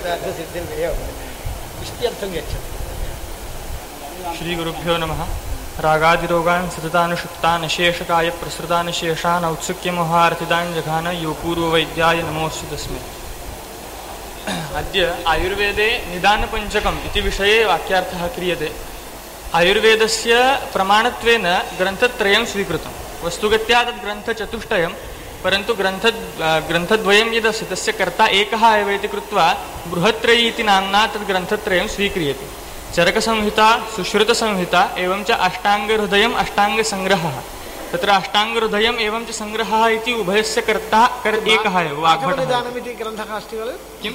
सिद्धिर्वेव इत्यर्थं गच्छति. श्रीगुरुभ्यो नमः. रागादिरोगान् सततानुषुप्तान् अशेषकायप्रसृतान् शेषान् औत्सुक्यमोहार्थितान् जघान यो पूर्ववैद्याय नमोऽस्तु तस्मै. अद्य आयुर्वेदे निदानपञ्चकम् इति विषये वाक्यार्थः क्रियते. आयुर्वेदस्य प्रमाणत्वेन ग्रन्थत्रयं स्वीकृतं. वस्तुगत्या तद् ग्रन्थचतुष्टयं, परन्तु ग्रन्थद्वयं यदस्ति तस्य कर्ता एकः एव इति कृत्वा बृहत्त्रयी इति नाम्ना तद् ग्रन्थत्रयं स्वीक्रियते. चरकसंहिता, सुश्रुतसंहिता एवं च अष्टाङ्गहृदयम् अष्टाङ्गसङ्ग्रहः. तत्र अष्टाङ्गहृदयम् एवं च सङ्ग्रहः इति उभयस्य कर्ता एकः एव. माधवनिदानमिति ग्रन्थः अस्ति खलु? किं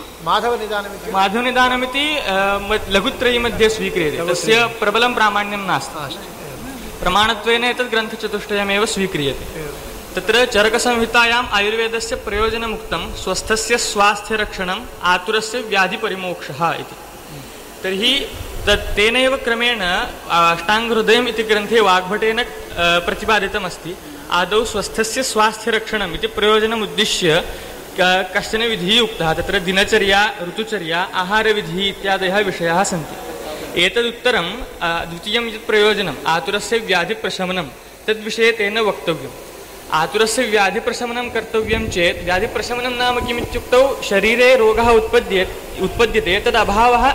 माधवनिदानमिति लघुत्रयी मध्ये स्वीक्रियते. तस्य प्रबलं प्रामाण्यं नास्ति. प्रमाणत्वेन एतद् ग्रन्थचतुष्टयमेव स्वीक्रियते. तत्र चरकसंहितायाम् आयुर्वेदस्य प्रयोजनमुक्तं स्वस्थस्य स्वास्थ्यरक्षणम् आतुरस्य व्याधिपरिमोक्षः इति. तर्हि तेनैव क्रमेण अष्टाङ्गहृदयम् इति ग्रन्थे वाग्भटेन प्रतिपादितमस्ति. आदौ स्वस्थस्य स्वास्थ्यरक्षणम् इति प्रयोजनमुद्दिश्य कश्चन विधिः उक्तः. तत्र दिनचर्या, ऋतुचर्या, आहारविधिः इत्यादयः विषयाः सन्ति. एतदुत्तरं द्वितीयं यत् प्रयोजनम् आतुरस्य व्याधिप्रशमनं, तद्विषये तेन वक्तव्यम्. आतुरस्य व्याधिप्रशमनं कर्तव्यं चेत् व्याधिप्रशमनं नाम किमित्युक्तौ शरीरे रोगः उत्पद्यते तदभावः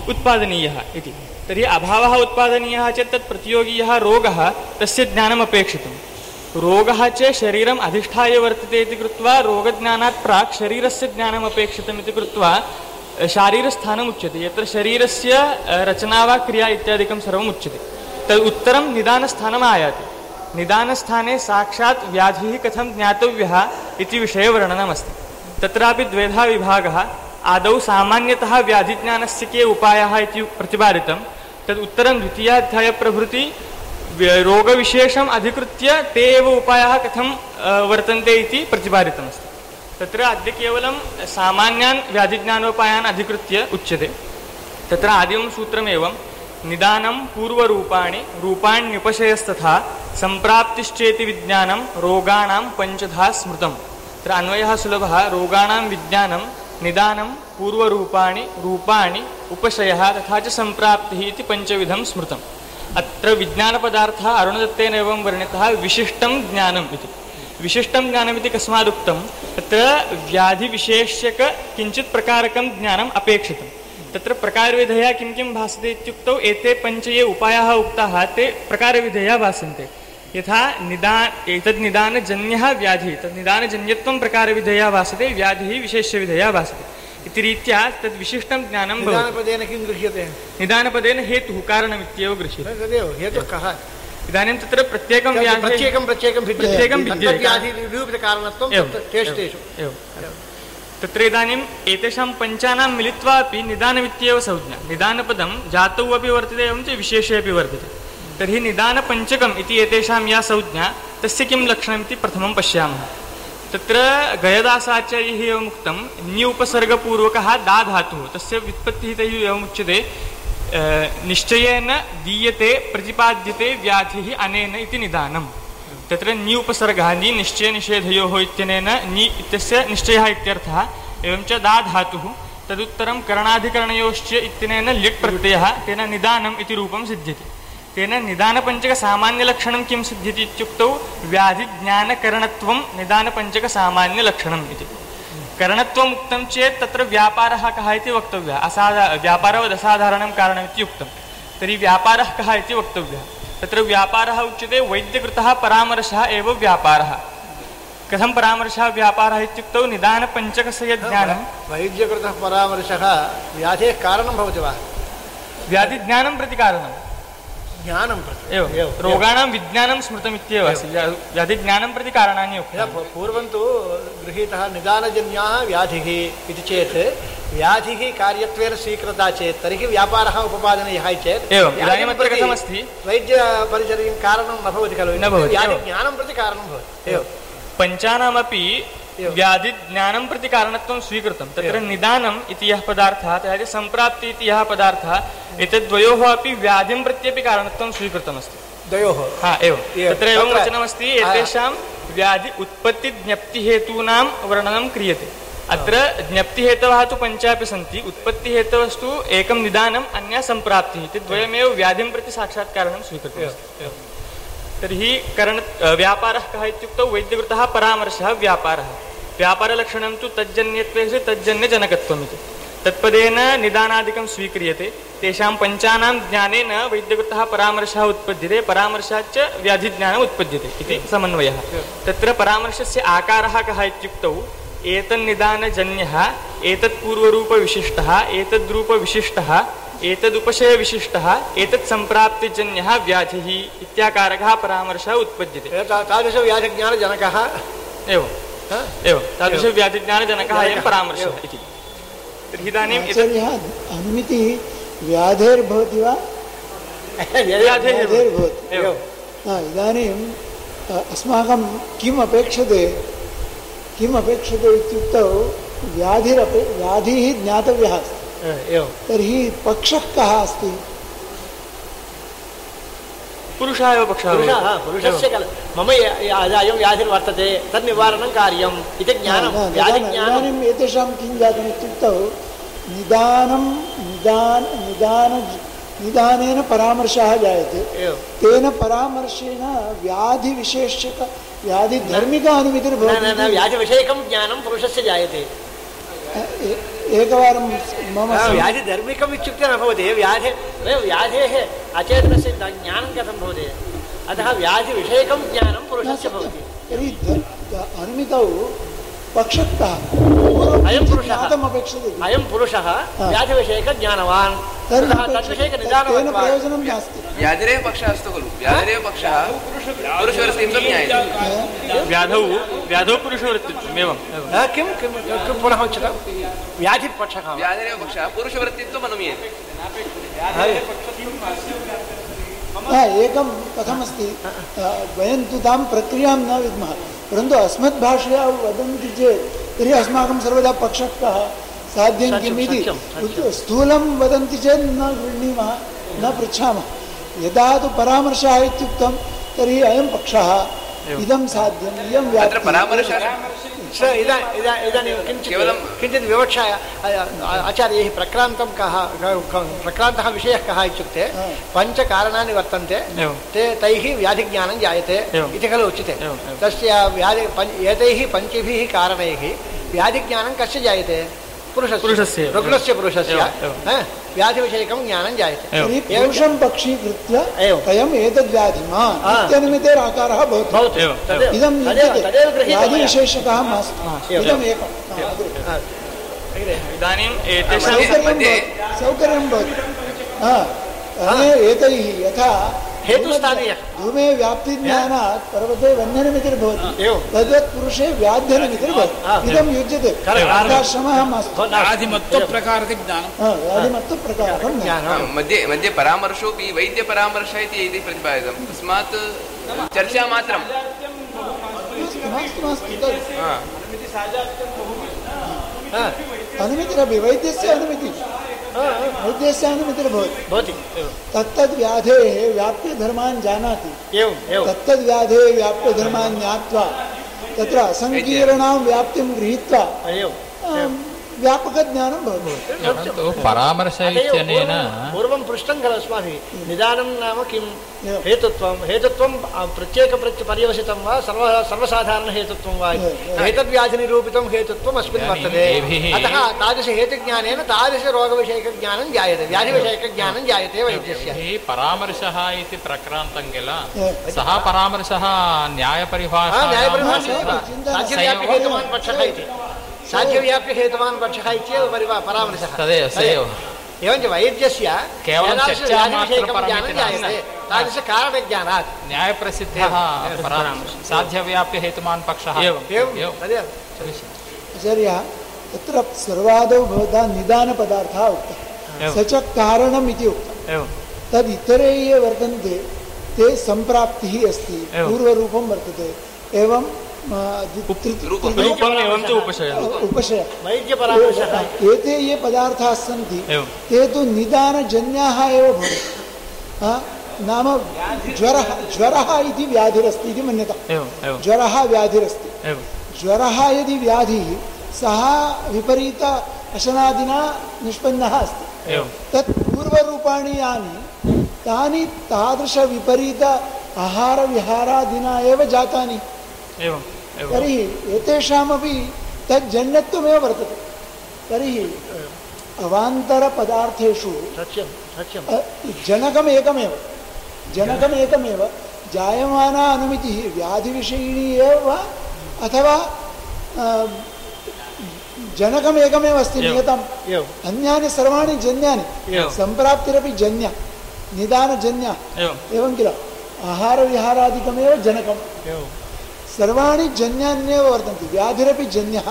उत्पादनीयः इति. तर्हि अभावः उत्पादनीयः चेत् तत् प्रतियोगी यः रोगः तस्य ज्ञानम् अपेक्षितं. रोगः च शरीरम् अधिष्ठाय वर्तते इति कृत्वा रोगज्ञानात् प्राक् शरीरस्य ज्ञानम् अपेक्षितम् इति कृत्वा शारीरस्थानम् उच्यते. यत्र शरीरस्य रचना वा क्रिया इत्यादिकं सर्वम् उच्यते. तद् उत्तरं निदानस्थानम् आयाति. निदानस्थाने साक्षात् व्याधिः कथं ज्ञातव्यः इति विषये वर्णनमस्ति. तत्रापि द्वेधा विभागः. आदौ सामान्यतः व्याधिज्ञानस्य के उपायाः इति प्रतिपादितं. तद् उत्तरं द्वितीयाध्यायप्रभृति रोगविशेषम् अधिकृत्य ते एव उपायाः कथं वर्तन्ते इति प्रतिपादितमस्ति. तत्र अद्य केवलं सामान्यान् व्याधिज्ञानोपायान् अधिकृत्य उच्यते. तत्र आदिमं सूत्रमेवं निदानं पूर्वरूपाणि रूपाण्युपशयस्तथा सम्प्राप्तिश्चेति विज्ञानं रोगाणां पञ्चधा स्मृतं. तत्र अन्वयः सुलभः. रोगाणां विज्ञानं, निदानं, पूर्वरूपाणि, रूपाणि, उपशयः तथा च सम्प्राप्तिः इति पञ्चविधं स्मृतम्. अत्र विज्ञानपदार्थः अरुणदत्तेन एवं वर्णितः विशिष्टं ज्ञानम् इति. विशिष्टं ज्ञानमिति कस्मादुक्तं? तत्र व्याधिविशेष्यक किञ्चित् प्रकारकं ज्ञानम् अपेक्षितं. तत्र प्रकारविधया किं किं भासते इत्युक्तौ एते पञ्च ये उपायाः उक्ताः ते प्रकारविधया भासन्ते. यथा एतद् निदानजन्यः व्याधिः, तद् निदानजन्यत्वं प्रकारविधया भासते, व्याधिः विशेष्यविधया भासते इति रीत्या तद् विशिष्टं ज्ञानं भवति. निदानपदेन किं गृह्यते? निदानपदेन हेतुः कारणमित्येव गृह्यते. तदेव हेतुः कः? इदानीं तत्र प्रत्येकं तत्र इदानीम् एतेषां पञ्चानां मिलित्वा अपि निदानमित्येव संज्ञा. निदानपदं जातौ अपि वर्तते एवं च विशेषे अपि वर्तते. तर्हि निदानपञ्चकम् इति एतेषां या संज्ञा, तस्य किं लक्षणमिति प्रथमं पश्यामः. तत्र गयदासाचार्यैः एवम् उक्तं न्यूपसर्गपूर्वकः दा धातुः, तस्य व्युत्पत्तिः तैः एवमुच्यते निश्चयेन दीयते प्रतिपाद्यते व्याधिः अनेन इति निदानम्. तत्र न्यूपसर्गः नि निश्चयनिषेधयोः इत्यनेन नि इत्यस्य निश्चयः इत्यर्थः. एवं च दा धातुः. तदुत्तरं करणाधिकरणयोश्च इत्यनेन लिट् प्रत्ययः. तेन निदानम् इति रूपं सिद्ध्यति. तेन निदानपञ्चकसामान्यलक्षणं किं सिद्ध्यति इत्युक्तौ व्याधिज्ञानकरणत्वं निदानपञ्चकसामान्यलक्षणम् इति. करणत्वम् उक्तं चेत् तत्र व्यापारः कः इति वक्तव्यः. व्यापारवद् असाधारणं कारणमिति उक्तं. तर्हि व्यापारः कः इति वक्तव्यः. तत्र व्यापारः उच्यते वैद्यकृतः परामर्शः एव व्यापारः. कथं परामर्शः व्यापारः इत्युक्तौ निदानपञ्चकस्य यज्ञानं. वैद्यकृतः परामर्शः व्याधेः कारणं भवति वा? व्याधिज्ञानं प्रति कारणं. ज्ञानं प्रति एवं रोगाणां विज्ञानं स्मृतमित्येव अस्ति. व्याधिज्ञानं प्रति कारणानि उक्तानि. पूर्वं तु गृहीतः निदानजन्याः व्याधिः इति चेत् व्याधिः कार्यत्वेन स्वीकृता चेत् तर्हि व्यापारः उपपादनीयः चेत् एवम्. इदानीम् अत्र कथमस्ति? वैद्यपरिचर्यं कारणं न भवति खलु, व्याधिज्ञानं प्रति कारणं भवति. एवं पञ्चानामपि व्याधिज्ञानं प्रति कारणत्वं स्वीकृतं. तत्र निदानम् इति यः पदार्थः, तथा च सम्प्राप्ति इति यः पदार्थः, एतद्वयोः अपि व्याधिं प्रत्यपि कारणत्वं स्वीकृतमस्ति. द्वयोः एवं. तत्र एवं वचनमस्ति एतेषां व्याधि उत्पत्तिज्ञप्तिहेतूनां वर्णनं क्रियते. अत्र ज्ञप्तिहेतवः तु पञ्चापि सन्ति उत्पत्तिहेतवस्तु एकं निदानम् अन्या सम्प्राप्तिः इति द्वयमेव व्याधिं प्रति साक्षात्कारणं स्वीकृतम् तर्हि व्यापारः कः इत्युक्तौ वैद्यकृतः परामर्शः व्यापारः व्यापारलक्षणं तु तज्जन्यत्वे तज्जन्यजनकत्वमिति तत्पदेन निदानादिकं स्वीक्रियते तेषां पञ्चानां ज्ञानेन वैद्यकृतः परामर्शः उत्पद्यते परामर्शाच्च व्याधिज्ञानम् उत्पद्यते इति समन्वयः तत्र परामर्शस्य आकारः कः इत्युक्तौ एतन्निदानजन्यः एतत्पूर्वरूपविशिष्टः एतद्रूपविशिष्टः एतदुपशयविशिष्टः एतत्सम्प्राप्तिजन्यः व्याधिः इत्याकारकः परामर्शः उत्पद्यते तादृशव्याधिज्ञानजनकः एवं तादृशव्याधिज्ञानजनकः अयं परामर्शः इति तर्हि इदानीम् अनुमितिः व्याधेर्भवति वा व्याधेर्भवति इदानीम् अस्माकं किम् अपेक्षते इत्युक्तौ व्याधिः ज्ञातव्यः अस्ति तर्हि पक्षः कः अस्ति पुरुषः एव पक्षः पुरुषस्य मम अयं व्याधिर्वर्तते तन्निवारणं कार्यम् इति ज्ञानं इदानीम् एतेषां किं जातम् इत्युक्तौ निदानेन परामर्शः जायते तेन परामर्शेण व्याधिधर्मिक अनुमितिर्भवति व्याधिविषयकं ज्ञानं पुरुषस्य जायते एकवारं मम व्याधिधर्मिकम् इत्युक्ते न भवति व्याधेः अचेतनस्य ज्ञानं कथं भवति अतः व्याधिविषयकं ज्ञानं पुरुषस्य भवति तर्हि अनुमितौ पक्षतः अयं पुरुषः व्याधिविषयकज्ञानवान् तद्विषयकनिदानं प्रयोजनं नास्ति व्याधिरेव पक्षः अस्तु खलु व्याधिरेव पक्षः पुरुषवृत्तित्वं ज्ञायते व्याधौ पुरुषवृत्तित्वम् किं पुनः उच्यते व्याधिपक्षः व्याधिरेव पक्षः पुरुषवृत्तित्वम् अनुमीयते एकं कथमस्ति वयं तु तां प्रक्रियां न विद्मः परन्तु अस्मद्भाषया वदन्ति चेत् तर्हि अस्माकं सर्वदा पक्षः कः साध्यं किम् इति स्थूलं वदन्ति चेत् न गृह्णीमः न पृच्छामः यदा तु परामर्शः इत्युक्तं तर्हि अयं पक्षः इदं साध्यम् इयं इदानीं किञ्चित् विवक्षा आचार्यैः प्रक्रान्तः विषयः कः इत्युक्ते पञ्चकारणानि वर्तन्ते तैः व्याधिज्ञानं जायते इति खलु उच्यते तस्य एतैः पञ्चभिः कारणैः व्याधिज्ञानं कस्य जायते पुरुषस्य व्याधिविषयकं ज्ञानं जायते पुरुषं पक्षीकृत्य अयम् एतद्व्याधिमान् इत्यनुमितेराकारः भवति इदं व्याधिविशेषकः मास्तु इदम् एकम् इदानीम् सौकर्यं भवति एतैः यथा हेतुस्थानीय धूमे व्याप्तिज्ञानात् पर्वते वह्निर्मितिर्भवति तद्वत् पुरुषे व्याध्यनिमितिर्भवति इदं युज्यते आश्रमः मास्तु व्याधिमत्वप्रकारकं ज्ञानं मध्ये परामर्शोऽपि वैद्यपरामर्शः इति प्रतिपादितं तस्मात् चर्चा मात्रं अनुमितिरपि वैद्यस्य अनुमितिर्भवति तत्तद्व्याधेः व्याप्यधर्मान् जानाति तत्तद्व्याधेः व्याप्यधर्मान् ज्ञात्वा तत्र असङ्कीर्णां व्याप्तिं गृहीत्वा व्यापकज्ञानं भवति परामर्श इत्यनेन पूर्वं पृष्टं खलु अस्माभिः निदानं नाम किं हेतुत्वं प्रत्येकपर्यवसितं वा सर्वसाधारणहेतुत्वं वा एतद्व्याधिनिरूपितं हेतुत्वम् अस्मिन् वर्तते अतः तादृशहेतुज्ञानेन तादृशरोगविषयकज्ञानं जायते व्याधिविषयकज्ञानं जायते वैद्यस्य परामर्शः इति प्रक्रान्तं किल सः परामर्शः न्यायपरिभाषा साध्यव्याप्यहेतुमान् पक्षः इति साध्यव्याप्यहेतुमान् पक्षः इत्येव परामर्शः एवञ्च वैद्यस्य केवलं ज्ञानं जायते तादृशकारणज्ञानात् न्यायप्रसिद्धः साध्यव्याप्यहेतुमान् पक्षः आचार्यः तत्र सर्वादौ भवता निदानपदार्थः उक्तः स च कारणम् इति उक्तं तद् इतरे ये वर्तन्ते ते सम्प्राप्तिः अस्ति पूर्वरूपं वर्तते एवं उपशय एते ये पदार्थाः सन्ति ते तु निदानजन्याः एव भवन्ति नाम ज्वरः इति व्याधिरस्ति इति मन्यता ज्वरः व्याधिरस्ति ज्वरः यदि व्याधिः सः विपरीत अशनादिना निष्पन्नः अस्ति। तत् पूर्वरूपाणि यानि तानि तादृशविपरीत आहारविहारादिना एव जातानि। तर्हि एतेषामपि तज्जन्यत्वमेव वर्तते। तर्हि अवान्तरपदार्थेषु जनकमेकमेव जायमाना अनुमितिः व्याधिविषयिणी एव वा अथवा जनकमेकमेव अस्ति नियतम्। अन्यानि सर्वाणि जन्यानि, सम्प्राप्तिरपि जन्या, निदानजन्या एवं किल। आहारविहारादिकमेव जनकम्। सर्वाणि जन्यान्येव वर्तन्ते। व्याधिरपि जन्यः,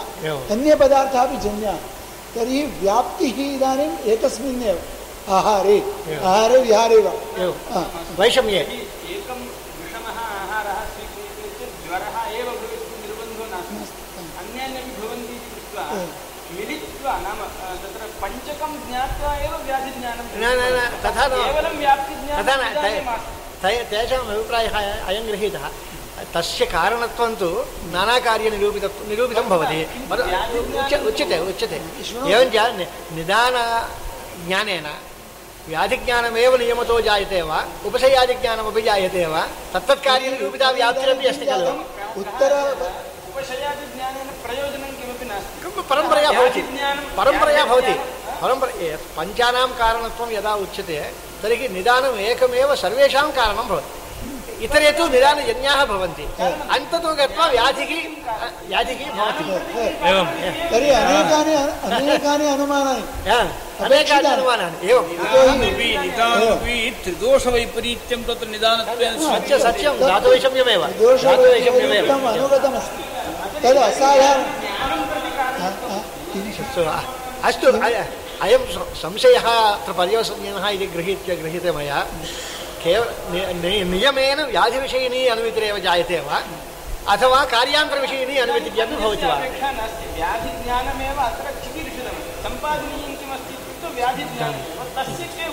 अन्यपदार्थाः अपि जन्याः। तर्हि व्याप्तिः इदानीम् एकस्मिन्नेव आहारे विहारे वा वैषम्ये एकं विषमः आहारः स्वीक्रियते चेत् ज्वरः एव भवेत्, निर्बन्धो नास्ति। अन्यान्यपि भवन्ति इति कृत्वा मिलित्वा नाम तत्र पञ्चकं ज्ञात्वा एव व्याधिज्ञानं तथा केवलं व्याप्तिज्ञानं तेषाम् अभिप्रायः अयं गृहीतः। तस्य कारणत्वं तु नानाकार्यनिरूपितं भवति। उच्यते एवञ्च निदानज्ञानेन व्याधिज्ञानमेव नियमतो जायते वा उपशयादिज्ञानमपि जायते वा तत्तत्कार्यनिरूपिता व्याप्तिरपि अस्ति खलु। उपशयादिज्ञानेन प्रयोजनं किमपि नास्ति। परम्परया भवति पञ्चानां कारणत्वं यदा उच्यते तर्हि निदानम् एकमेव सर्वेषां कारणं भवति। इतरे तु निदानजन्याः भवन्ति। अन्ततो गत्वा व्याधिः भवति। तर्हि अनेकानि अनुमानानि एवं त्रिदोषवैपरीत्यं तत्र निदानत्वेन सत्यं धातुवैषम्यमेव अनुगतमस्ति। तद् असाधारणम्। अस्तु अयं संशयः अत्र पर्यवसनीयः इति गृहीते मया। नियमेन व्याधिविषयिणी अनुमितिरेव जायते वा अथवा कार्यान्तरविषयिणी अनुमितिर्यपि भवति वा? व्याधिज्ञानमेव अत्र चिकीर्षितं सम्पादनीयं किमस्ति इत्युक्ते व्याधिज्ञानं तस्य के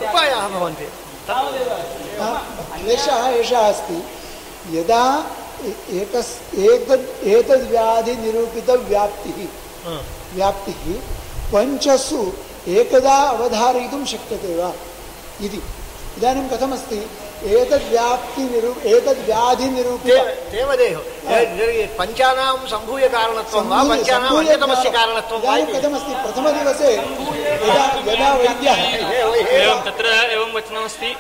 उपायाः भवन्ति। क्लेशः एषः अस्ति। यदा एतद्व्याधिनिरूपितव्याप्तिः पञ्चसु एकदा अवधारयितुं शक्यते वा इति। इदानीं कथमस्ति? एतद्व्याधिनिरूपित पञ्चानां सम्भूय कारणत्वं वा पञ्चानाम् अन्यतमस्य कारणत्वं वा कथमस्ति? प्रथमदिवसे यदा वैद्यः तत्र एवं वचनमस्ति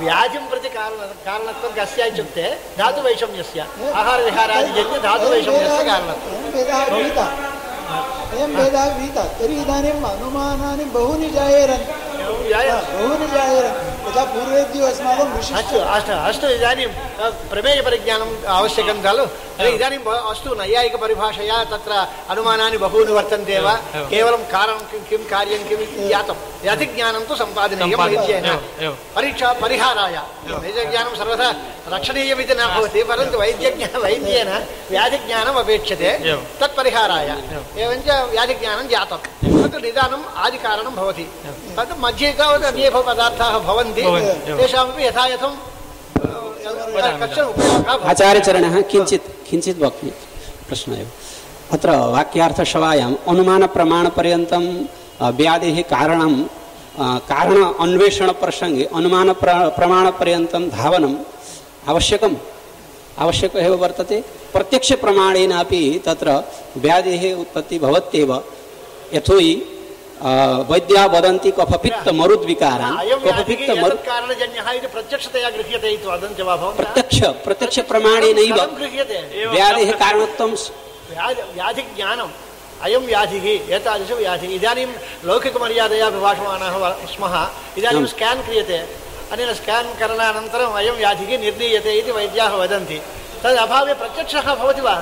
व्याधिं प्रति कारणत्वं कस्य इत्युक्ते धातुवैषम्यस्य आहारविहारादिजन्य धातुवैषम्यस्य कारणत्वं। अयं भेदः विहितः। तर्हि इदानीम् अनुमानानि बहूनि जायेरन्। यथा पूर्वेद्यो अस्माकं अस्तु इदानीं प्रमेयपरिज्ञानम् आवश्यकं खलु। इदानीम् अस्तु नैयायिकपरिभाषया तत्र अनुमानानि बहूनि वर्तन्ते वा केवलं कारणं किं कार्यं किम् इति ज्ञातं। व्याधिज्ञानं तु सम्पादनीयं वैद्येन परीक्षा परिहाराय। वैद्यज्ञानं सर्वथा रक्षणीयमिति न भवति परन्तु वैद्येन व्याधिज्ञानम् अपेक्षते तत्परिहाराय। एवञ्च व्याधिज्ञानं जातं तत् निदानम् आदिकारणं भवति। तत् मध्ये तावत् अन्ये पदार्थाः भवन्ति तेषामपि यथायथं कश्चन उपयोगः। आचार्यचरणः किञ्चित् वक्तुं प्रश्नः एव अत्र वाक्यार्थसभायाम् अनुमानप्रमाणपर्यन्तं व्याधेः कारण अन्वेषणप्रसङ्गे अनुमानप्रमाणपर्यन्तं धावनम् आवश्यकम् एव वर्तते। प्रत्यक्षप्रमाणेनापि तत्र व्याधेः उत्पत्तिः भवत्येव। यतोहि वैद्या वदन्ति कफपित्त मरुद्विकारान् प्रत्यक्ष प्रमाणेनैव व्याधेः कारणत्वं व्याधिज्ञानम् अयं व्याधिः एतादृशव्याधिः। इदानीं लौकिकमर्यादया विभाषमाणाः स्मः। इदानीं स्केन् क्रियते। अनेन स्केन् करणानन्तरम् अयं व्याधिः निर्णीयते इति वैद्याः वदन्ति। तद् अभावे प्रत्यक्षः भवति वा?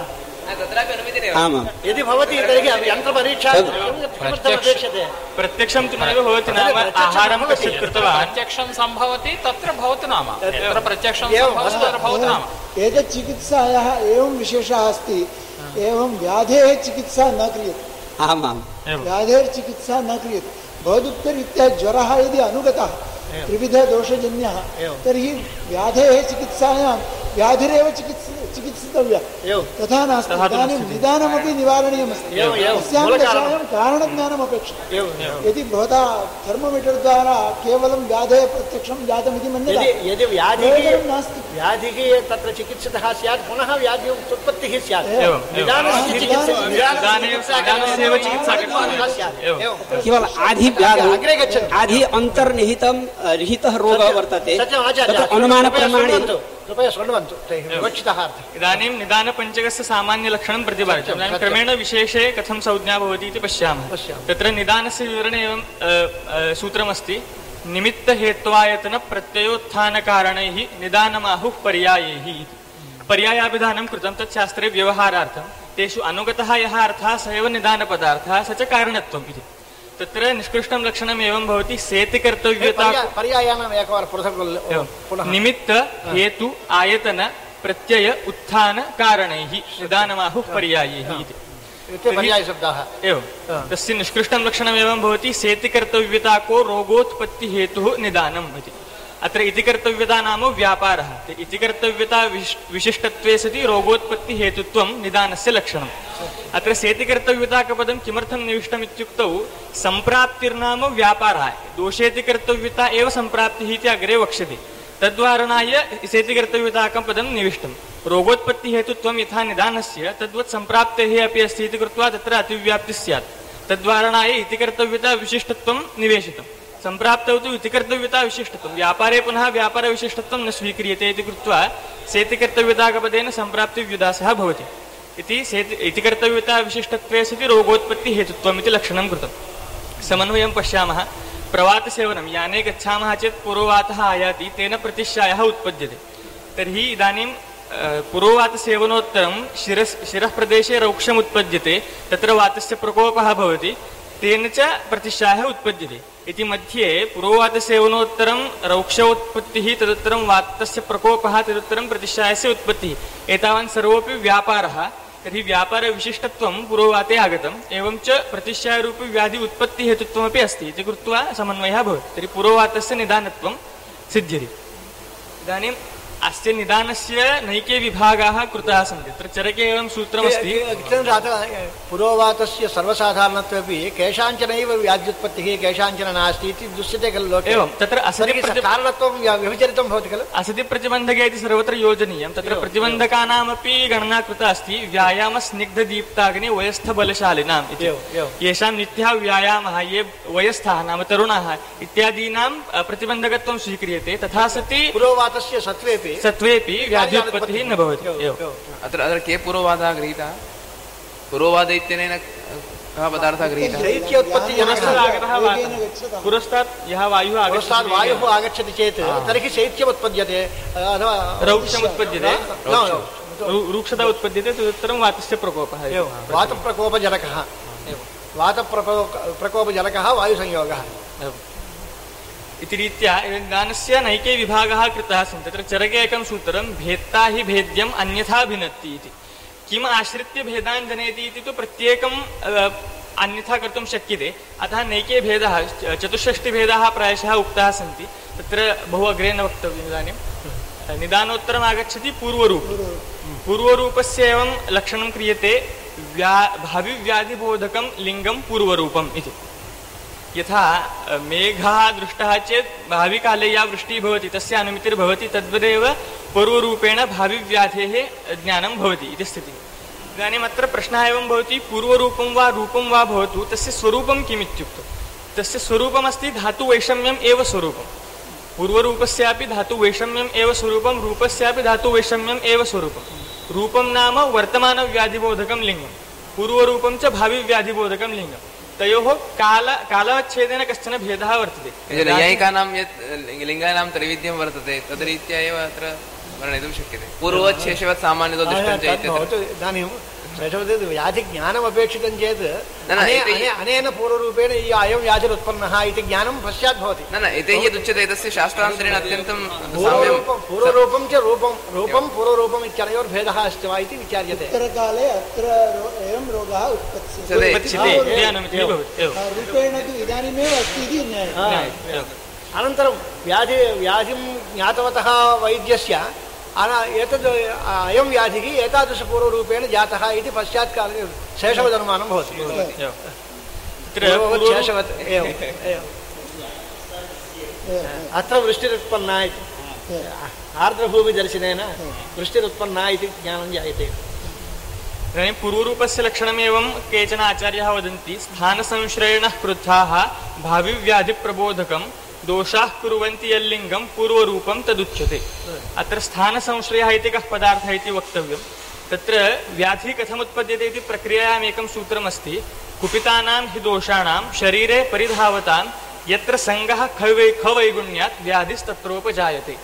यदि भवति तर्हि यन्त्रपरीक्षा अपेक्षते। प्रत्यक्षं तु नैव भवति नाम आहारं कश्चित् कृत्वा प्रत्यक्षं सम्भवति तत्र भवतु नाम तत्र प्रत्यक्षं भवतु नाम। एतत् चिकित्सायाः एवं विशेषः अस्ति। एवं व्याधेः चिकित्सा न क्रियते। आमां व्याधेः चिकित्सा न क्रियते। भवदुक्तरीत्या ज्वरः यदि अनुगतः त्रिविधदोषजन्यः तर्हि व्याधेः चिकित्सायां व्याधिरेव चिकित्सितव्या तथा नास्ति इदानीं निदानमपि निवारणीयमस्ति अस्यां दशायां कारणज्ञानमपेक्षितम् यदि भवता थर्मोमीटर् द्वारा केवलं व्याधेः प्रत्यक्षं जातमिति मन्यते यदि व्याधिः नास्ति व्याधिः तत्र चिकित्सितः स्यात् पुनः व्याधि उत्पत्तिः स्यात् केवल आधि व्याधौ आधि अन्तर्निहितं निहितः रोगः वर्तते अनुमानप्रमाणेन इदानीं निदानपञ्चकस्य सामान्यलक्षणं प्रतिपादितम् इदानीं क्रमेण विशेषे कथं संज्ञा भवति इति पश्यामः तत्र निदानस्य विवरणे एवं सूत्रमस्ति निमित्तहेत्वायतनप्रत्ययोत्थानकारणैः निदानमाहुः पर्यायैः इति पर्यायाभिधानं कृतं तत् शास्त्रे व्यवहारार्थं तेषु अनुगतः यः अर्थः स एव निदानपदार्थः स च कारणत्वम् इति तत्र निष्कृष्टं लक्षणम् एवं भवति सेतिकर्तव्यता निमित्त हेतु आयतन प्रत्यय उत्थान कारणैः निदानमाहुः पर्यायैः इति एवं तस्य निष्कृष्टं लक्षणमेवं भवति सेतिकर्तव्यताको रोगोत्पत्तिहेतुः निदानम् इति अत्र इति कर्तव्यता नाम व्यापारः इति कर्तव्यता विशिष्टत्वे सति रोगोत्पत्तिहेतुत्वं निदानस्य लक्षणम् अत्र सेतिकर्तव्यताकपदं किमर्थं निविष्टम् इत्युक्तौ सम्प्राप्तिर्नाम व्यापारः दोषेति कर्तव्यता एव सम्प्राप्तिः इति अग्रे वक्ष्यते तद्वारणाय सेतिकर्तव्यताकं पदं निविष्टं रोगोत्पत्तिहेतुत्वं यथा निदानस्य तद्वत् सम्प्राप्तेः अपि अस्ति इति कृत्वा तत्र अतिव्याप्तिः स्यात् तद्वारणाय इति कर्तव्यता विशिष्टत्वं निवेशितम् सम्प्राप्तौ तु इति कर्तव्यता विशिष्टत्वं व्यापारे पुनः व्यापारविशिष्टत्वं न स्वीक्रियते इति कृत्वा सेतिकर्तव्यताकपदेन सम्प्राप्तिव्युदासः भवति इति कर्तव्यता विशिष्टत्वे सति रोगोत्पत्तिहेतुत्वम् इति लक्षणं कृतं समन्वयं पश्यामः प्रवातसेवनं याने गच्छामः चेत् पुरोवातः आयाति तेन प्रतिश्यायः उत्पद्यते तर्हि इदानीं पुरोवातसेवनोत्तरं शिरः प्रदेशे रौक्षम् उत्पद्यते तत्र वातस्य प्रकोपः भवति तेन च प्रतिश्यायः उत्पद्यते इति मध्ये पुरोवातसेवनोत्तरं रौक्षोत्पत्तिः तदुत्तरं वातस्य प्रकोपः तदुत्तरं प्रतिश्यायस्य उत्पत्तिः एतावान् सर्वोऽपि व्यापारः तर्हि व्यापारविशिष्टत्वं पुरोवाते आगतम् एवं च प्रतिश्यायरूपी व्याधि उत्पत्तिहेतुत्वमपि अस्ति इति कृत्वा समन्वयः भवति तर्हि पुरोवातस्य निदानत्वं सिद्ध्यति इदानीं अस्य निदानस्य नैके विभागाः कृताः सन्ति तत्र चरके एवं सूत्रमस्ति पुरोवातस्य सर्वसाधारणत्वेपि केषाञ्चनैव व्याध्युत्पत्तिः केषाञ्चन नास्ति इति दृश्यते खलु लोके एवं तत्र कारणत्वं विभजनितं भवति खलु असति प्रतिबन्धके इति सर्वत्र योजनीयं तत्र प्रतिबन्धकानामपि गणना कृता अस्ति व्यायामस्निग्धदीप्ताग्नि वयस्थबलशालिनाम् इति येषां नित्यः व्यायामः ये वयस्थाः नाम तरुणाः इत्यादीनां प्रतिबन्धकत्वं स्वीक्रियते तथा सति पुरोवातस्य सत्वेपि व्याध्युत्पत्तिः न भवति अत्र के पुरोवादः गृहीतः पुरोवाद इत्यनेन कः पदार्थः गृहीतः पुरस्तात् यः वायुः आगच्छति चेत् तर्हि शैत्यम् उत्पद्यते रौक्षम् उत्पद्यते रूक्षता उत्पद्यते तदुत्तरं वातस्य प्रकोपः वातप्रकोपजनकः वायुसंयोगः इति रीत्या निदानस्य नैके विभागाः कृताः सन्ति तत्र चरके एकं सूत्रं भेत्ता हि भेद्यम् अन्यथा भिन्नति इति किम् आश्रित्य भेदान् जनयति इति तु प्रत्येकम् अन्यथा कर्तुं शक्यते अतः नैके भेदाः चतुष्षष्टिभेदाः प्रायशः उक्ताः सन्ति तत्र बहु अग्रे न वक्तव्यम् इदानीं निदानोत्तरम् आगच्छति पूर्वरूपस्य एवं लक्षणं क्रियते भाविव्याधिबोधकं लिङ्गं पूर्वरूपम् इति यथा मेघः दृष्टः चेत् भाविकाले या वृष्टिः भवति तस्य अनुमितिर्भवति तद्वदेव पूर्वरूपेण भाविव्याधेः ज्ञानं भवति इति स्थितिः इदानीम् अत्र प्रश्नः एवं भवति पूर्वरूपं वा रूपं वा भवतु तस्य स्वरूपं किम् इत्युक्तौ तस्य स्वरूपमस्ति धातुवैषम्यम् एव स्वरूपं पूर्वरूपस्यापि धातुवैषम्यम् एव स्वरूपं रूपस्यापि धातुवैषम्यम् एव स्वरूपं रूपं नाम वर्तमानव्याधिबोधकं लिङ्गं पूर्वरूपं च भाविव्याधिबोधकं लिङ्गं तयोः कालच्छेदेन कश्चन भेदः वर्तते नैयायिकानां यत् लिङ्गानां त्रैविध्यं वर्तते तद्रीत्या एव अत्र वर्णयितुं शक्यते पूर्वच्छेषवत् सामान्यतो दृष्टं च इदानीं व्याधिज्ञानमपेक्षितं चेत् अनेन पूर्वरूपेण अयं व्याधिरुत्पन्नः इति ज्ञानं पश्चात् भवति न इति यदुच्यते तस्य शास्त्रान्तरेण अत्यन्तं पूर्वरूपं च रूपं पूर्वरूपम् इत्यनयोर्भेदः अस्ति वा इति विचार्यते उत्तरकाले अत्र एवं रोगः उत्पत्स्यते रूपेण तु इदानीमेव अस्ति इति ज्ञायते अनन्तरं व्याधिं ज्ञातवतः वैद्यस्य एतद् अयं व्याधिः एतादृशपूर्वरूपेण जातः इति पश्चात् काले शेषवदनुमानं भवति। शेषवत् एवम् अत्र वृष्टिरुत्पन्ना इति आर्द्रभूमिदर्शनेन वृष्टिरुत्पन्ना इति ज्ञानं जायते। इदानीं पूर्वरूपस्य लक्षणमेवं केचन आचार्याः वदन्ति स्थानसंश्रयणः क्रुद्धाः भाविव्याधिप्रबोधकं दोषाः कुर्वन्ति यल्लिङ्गं पूर्वरूपं तदुच्यते। अत्र स्थानसंश्रयः इति कः पदार्थः इति वक्तव्यं। तत्र व्याधिः कथमुत्पद्यते इति प्रक्रियायाम् एकं सूत्रमस्ति। कुपितानां हि दोषाणां शरीरे परिधावतां यत्र संगः खवैगुण्यात् व्याधिस्तत्रोपजायते।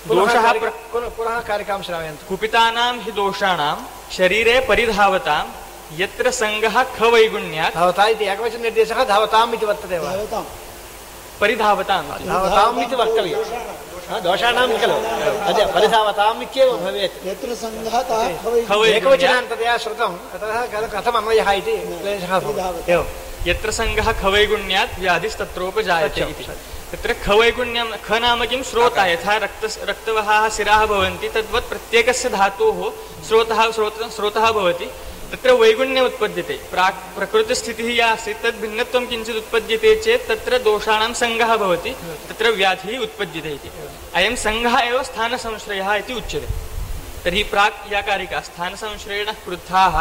दोषः पुनः कारिकां श्रावयन्तु। कुपितानां हि दोषाणां शरीरे परिधावतां यत्र संगः खवैगुण्यात् धावता इति एकवचननिर्देशः धावताम् इति वर्तते वा? परिधावताम् इति वक्तव्यं। दोषाणां खलु अद्य परिधावताम् इत्येव भवेत्। यत्र संगः एकवचनान्ततया श्रुतं ततः कथम् अन्वयः इति क्लेशः भवति। यत्र संगः खवैगुण्यात् व्याधिस्तत्रोपजायते इति। तत्र खवैगुण्यं ख नाम किं स्रोतः। यथा रक्तवहाः शिराः भवन्ति तद्वत् प्रत्येकस्य धातोः स्रोतः भवति। तत्र वैगुण्यम् उत्पद्यते। प्रकृतिस्थितिः या आसीत् तद् भिन्नत्वं किञ्चित् उत्पद्यते चेत् तत्र दोषाणां संगः भवति, तत्र व्याधिः उत्पद्यते इति। अयं संगः एव स्थानसंश्रयः इति उच्यते। तर्हि प्राक् या कारिका स्थानसंश्रयणः क्रुद्धाः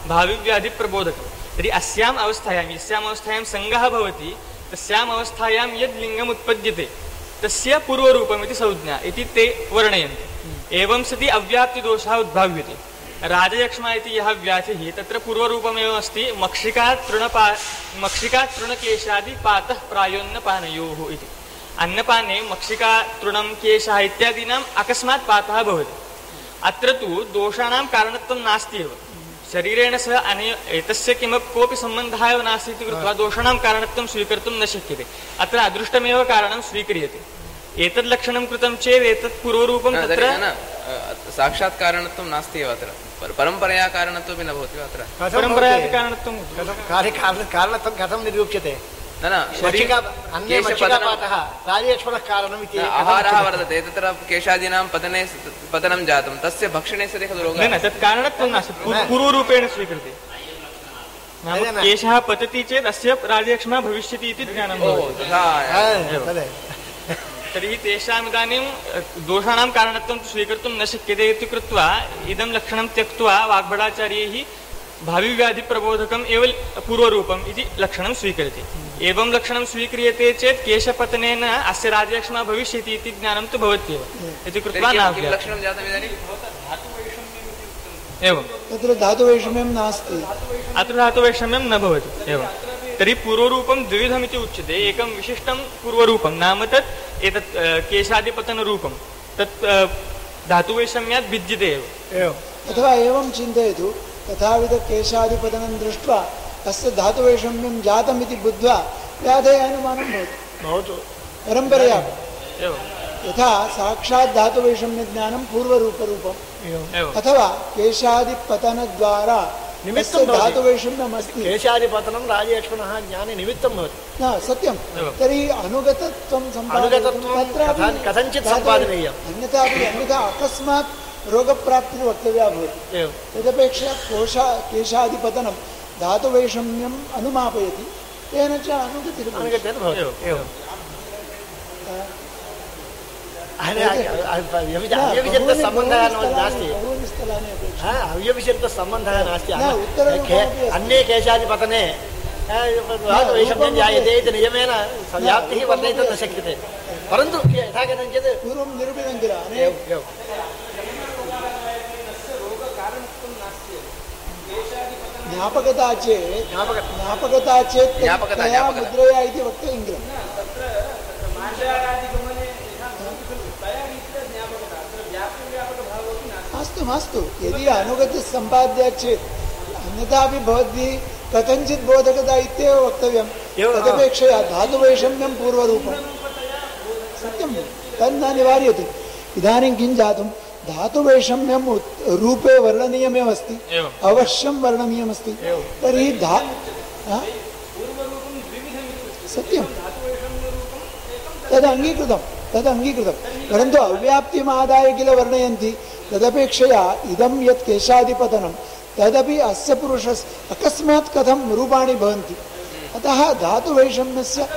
भाविव्याधिप्रबोधकं। तर्हि अस्याम् अवस्थायां यस्याम् अवस्थायां संगः भवति तस्याम् अवस्थायां यद् लिङ्गम् उत्पद्यते तस्य पूर्वरूपमिति संज्ञा इति ते वर्णयन्ति। एवं सति अव्याप्तिदोषः उद्भाव्यते। राजयक्ष्मा इति यः व्याधिः तत्र पूर्वरूपमेव अस्ति मक्षिकातृणकेशादि पातः प्रायोन्नपानयोः इति। अन्नपाने मक्षिकातृणं केशः इत्यादीनाम् अकस्मात् पातः भवति। अत्र तु दोषाणां कारणत्वं नास्ति एव। शरीरेण सह एतस्य कोऽपि सम्बन्धः एव नास्ति इति कृत्वा दोषाणां कारणत्वं स्वीकर्तुं न शक्यते। अत्र अदृष्टमेव कारणं स्वीक्रियते। एतद् लक्षणं कृतं चेत् एतत् पूर्वरूपं तत्र साक्षात् कारणत्वं नास्ति एव। अत्र परम्परया कारणत्वमपि न भवति वा? अत्र परम्परया कारणत्वं कारणत्वं कथं निरूप्यते? आहारः वर्तते तत्र केशादीनां पतनं जातं तस्य भक्षणे सति खलु रोगः। न तत् कारणत्वं नास्ति, पूर्वरूपेण स्वीकृते। नाम केशः पतति चेत् अस्य राजयक्ष्मा भविष्यति इति ज्ञानं भवति। तर्हि तेषाम् इदानीं दोषाणां कारणत्वं स्वीकर्तुं न शक्यते इति कृत्वा इदं लक्षणं त्यक्त्वा वाग्भटाचार्यैः भाविव्याधिप्रबोधकम् एव पूर्वरूपम् इति लक्षणं स्वीक्रियते। एवं लक्षणं स्वीक्रियते चेत् केशपतनेन अस्य राजयक्ष्मा भविष्यति इति ज्ञानं तु भवत्येव इति कृत्वा लक्षणं जातम् इदानीं एवं तत्र धातुवैषम्यं नास्ति। अत्र धातुवैषम्यं न भवति एवं। तर्हि पूर्वरूपं द्विविधमिति उच्यते। एकं विशिष्टं पूर्वरूपं नाम तत् एतत् केशादिपतनरूपं तत् धातुवैषम्यात् भिद्यते एव। अथवा एवं चिन्तयतु तथाविध केशादिपतनं दृष्ट्वा अस्य धातुवैषम्यं जातमिति बुद्ध्वा व्याधेः अनुमानं भवति परम्परया। यथा साक्षात् धातुवैषम्यज्ञानं पूर्वरूपरूपम् अथवा केशादिपतनद्वारा धातुवैषम्यम् अस्ति। केशादिपतनं राजयक्ष्मणः ज्ञाने निमित्तं भवति। न सत्यं। तर्हि अनुगतत्वं कथञ्चित् सम्पादनीयम्। अन्यथा अकस्मात् रोगप्राप्तिर्वक्तव्या भवति। तदपेक्षया केशादिपतनं धातुवैषम्यम् अनुमापयति, तेन च अव्यभिचरितसम्बन्धः नास्ति। अव्यभिचरितसम्बन्धः नास्ति। अन्ये केशादिपतने धातुवैषम्यं जायते इति नियमेन व्याप्तिः वर्णयितुं न शक्यते। परन्तु यथा कथञ्चित् पूर्वं निरूपितं किल ज्ञापकता चेत् मुद्रया इति वक्तव्यं किल। मास्तु यदि अनुगतिः सम्पाद्या चेत् अन्यथापि भवद्भिः कथञ्चित् बोधकता इत्येव वक्तव्यं। तदपेक्षया धातुवैषम्यं पूर्वरूपं सत्यं तन्न निवार्यते। इदानीं किं जातं धातुवैषम्यं रूपे वर्णनीयमेव अस्ति, अवश्यं वर्णनीयमस्ति। तर्हि सत्यं तद् अङ्गीकृतं परन्तु अव्याप्तिमादाय किल वर्णयन्ति तदपेक्षया इदं यत् केशादिपतनं तदपि अस्य पुरुषस्य अकस्मात् कथं रूपाणि भवन्ति अतः धातुवैषम्यस्य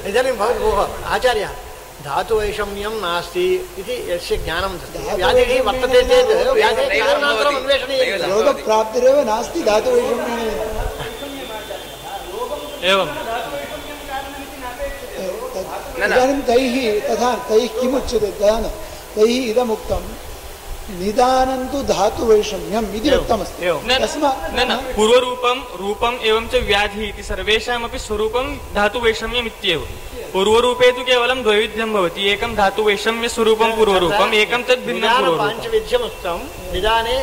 इदानीं भोः आचार्य धातुवैषम्यं नास्ति इति यस्य ज्ञानं व्याधिः वर्तते चेत् व्याधेः कारणान्तरम् अन्वेषणीयं रोगप्राप्तिरेव नास्ति धातुवैषम्येन एवम् इदानीं तैः किमुच्यते तैः इदमुक्तं निदानं तु धातुवैषम्यम् इति उक्तमस्ति न पूर्वरूपं रूपम् एवं च व्याधिः इति सर्वेषामपि स्वरूपं धातुवैषम्यम् इत्येव पूर्वरूपे तु केवलं द्वैविध्यं भवति एकं धातुवैषम्यस्वरूपं पूर्वरूपम् एकं तद् भिन्नं पूर्वरूपं पाञ्चविध्यमुक्तं निदाने